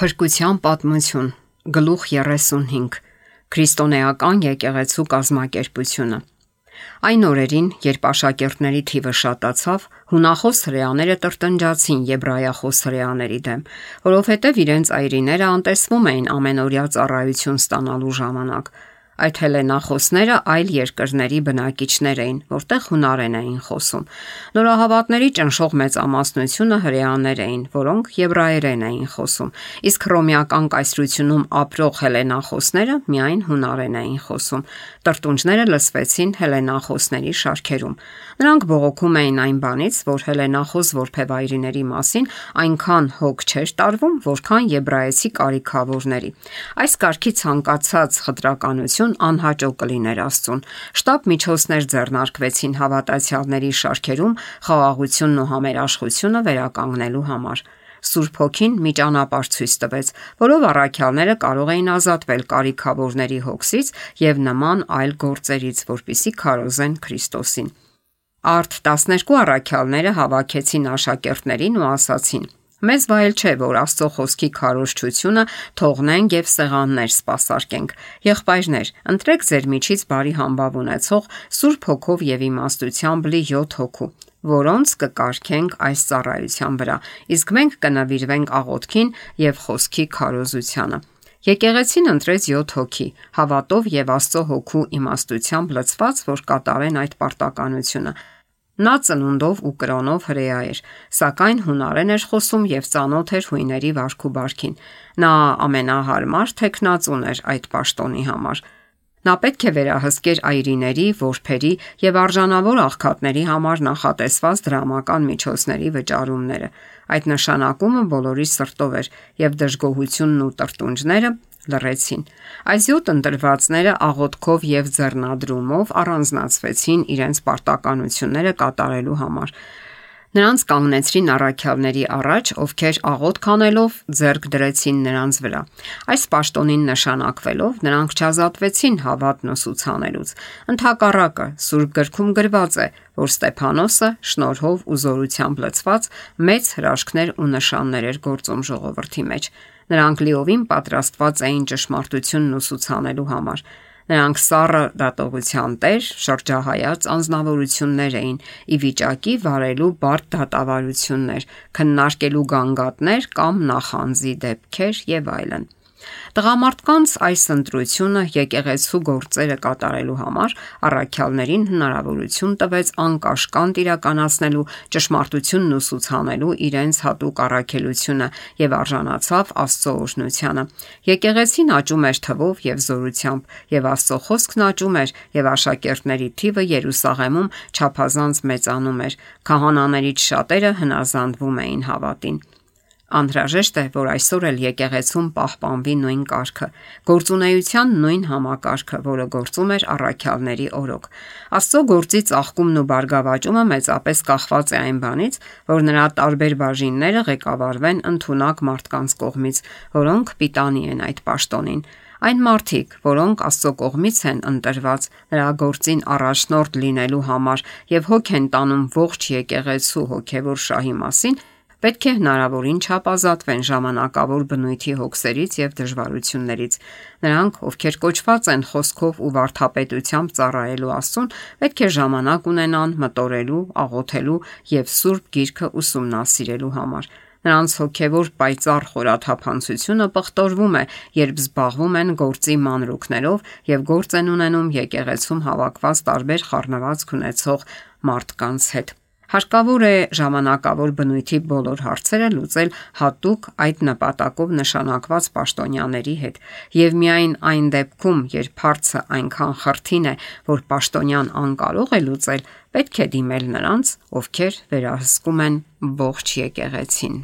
Փրկության պատմություն, գլուխ 35, Քրիստոնեական եկեղեցու կազմակերպությունը։ Այն օրերին, երբ աշակերտների թիվը շատացավ, հունախոս հրեաները տրտնջացին եբրայախոս հրեաների դեմ, որովհետև իրենց այրիները անտեսվում էին ամենօրյա ծառայություն ստանալու ժամանակ։ Այդ հելենախոսները այլ երկրների բնակիչներ էին, որտեղ հունարեն էին խոսում։ Նորահավատների ճնշող մեծամասնությունը հրեաներ էին, որոնք եբրայերեն էին խոսում, իսկ հռոմեական կայսրությունում ապրող հելենախոսները միայն հունարեն էին խոսում։ Տրտունջները լսվեցին հելենախոսների շարքերում։ Նրանք բողոքում էին այն բանից, որ հելենախոս որբևայրիների մասին այնքան հոգ չէր տարվում, որքան եբրայեցի կարիքավորների։ Այս կարգի ցանկացած խտրականություն անհաճո կլիներ Աստծուն։ Շտապ միջոցներ ձեռնարկվեցին հավատացյալների շարքերում խաղաղությունն ու համերաշխությունը վերականգնելու համար։ Սուրբ Հոգին մի ճանապարհ ցույց տվեց, որով առաքյալները կարող էին ազատվել կարիքավորների հոգսից եւ նման այլ գործերից, որպիսի քարոզեն Քրիստոսին։ Արդ 12 առաքյալները հավաքեցին աշակերտներին ու ասացին. Մեզ վայել չէ, որ Աստծո խոսքի քարոզչությունը թողնենք եւ սեղաններ սպասարկենք։ Եղբայրներ, ընտրեք ձեր միջից բարի համբավ ունեցող Սուրբ Հոգով եւ իմաստությամբ լի 7 հոգու, որոնց կկարգենք այս ծառայության վրա, իսկ մենք կնվիրվենք աղոթքին եւ խոսքի քարոզությանը։ Եկեղեցին ընտրեց 7 հոգի, հավատով եւ Աստծո Հոգու իմաստությամբ լցված, որ կատարեն այդ պարտականությունը։ Նա ծնունդով ու կրոնով հրեա էր, սակայն հունարեն էր խոսում եւ ծանոթ էր հույների վարք ու բարքին։ Նա ամենահարմար թեկնածուն էր այդ պաշտոնի համար։ Նա պետք է վերահսկեր այրիների, որբերի եւ արժանավոր աղքատների համար նախատեսված դրամական միջոցների վճարումները։ Այդ նշանակումը բոլորի սրտով էր եւ դժգոհությունն ու տրտունջները լռեցին։ Այս 7 ընտրվածները աղոթքով եւ ձեռնադրումով առանձնացվեցին իրենց պարտականությունները կատարելու համար։ Նրանց կանգնեցրին առաքյալների առաջ, ովքեր աղոթք անելով ձեռք դրեցին նրանց վրա։ Այս պաշտոնին նշանակվելով նրանք չազատվեցին հավատն ուսուցանելուց։ Ընդհակառակը, Սուրբ գրքում գրված է, որ Ստեփանոսը շնորհով ու զորությամբ լցված մեծ հրաշքներ ու նշաններ էր գործում ժողովրդի մեջ։ Նրանք լիովին պատրաստված էին ճշմարտությունն ուսուցանելու համար։ Նրանք սառը դատողության տեր, շրջահայաց անձնավորություններ էին, ի վիճակի վարելու բարդ դատավարություններ, քննարկելու գանգատներ կամ նախանձի դեպքեր եւ այլն։ Տղամարդկանց այս ընտրությունը եկեղեցու գործերը կատարելու համար առաքյալներին հնարավորություն տվեց անկաշկանդ իրականացնելու ճշմարտությունն ուսուցանելու իրենց հատուկ առաքելությունը եւ արժանացավ Աստծո օրհնությանը։ Եկեղեցին աճում էր թվով եւ զորությամբ, եւ Աստծո խոսքն աճում էր, եւ աշակերտների թիվը Երուսաղեմում չափազանց մեծանում էր։ Քահանաներից շատերը հնազանդվում էին հավատին։ Անհրաժեշտ է, որ այսօր էլ եկեղեցում պահպանվի նույն կարգը, գործունեության նույն համակարգը, որը գործում էր առաքյալների օրոք։ Աստծո գործի ծաղկումն ու բարգավաճումը մեծապես կախված է այն բանից, որ նրա տարբեր բաժինները ղեկավարվեն ընդունակ մարդկանց կողմից, որոնք պիտանի են այդ պաշտոնին։ Այն մարդիկ, որոնք Աստծո կողմից են ընտրված նրա գործին առաջնորդ լինելու համար եւ հոգ են տանում ողջ եկեղեցու հոգեվոր շահի մասին, պետք է հնարավորին չափ ազատվեն ժամանակավոր բնույթի հոգսերից եւ դժվարություններից։ Նրանք, ովքեր կոչված են խոսքով ու վարդապետությամբ ծառայելու Աստծուն, պետք է ժամանակ ունենան մտորելու, աղոթելու եւ Սուրբ Գիրքը ուսումնասիրելու համար։ Նրանց հոգևոր պայծառ խորաթափանցությունը պղտորվում է, երբ զբաղվում են գործի մանրուքներով եւ գործ են ունենում եկեղեցում հավաքված տարբեր խառնվածք ունեցող մարդկանց հետ։ Հարկավոր է ժամանակավոր բնույթի բոլոր հարցերը լուծել հատուկ այդ նպատակով նշանակված պաշտոնյաների հետ, եւ միայն այն դեպքում, երբ հարցը այնքան խրթին է, որ պաշտոնյան անկարող է լուծել, պետք է դիմել նրանց, ովքեր վերահսկում են ողջ եկեղեցին։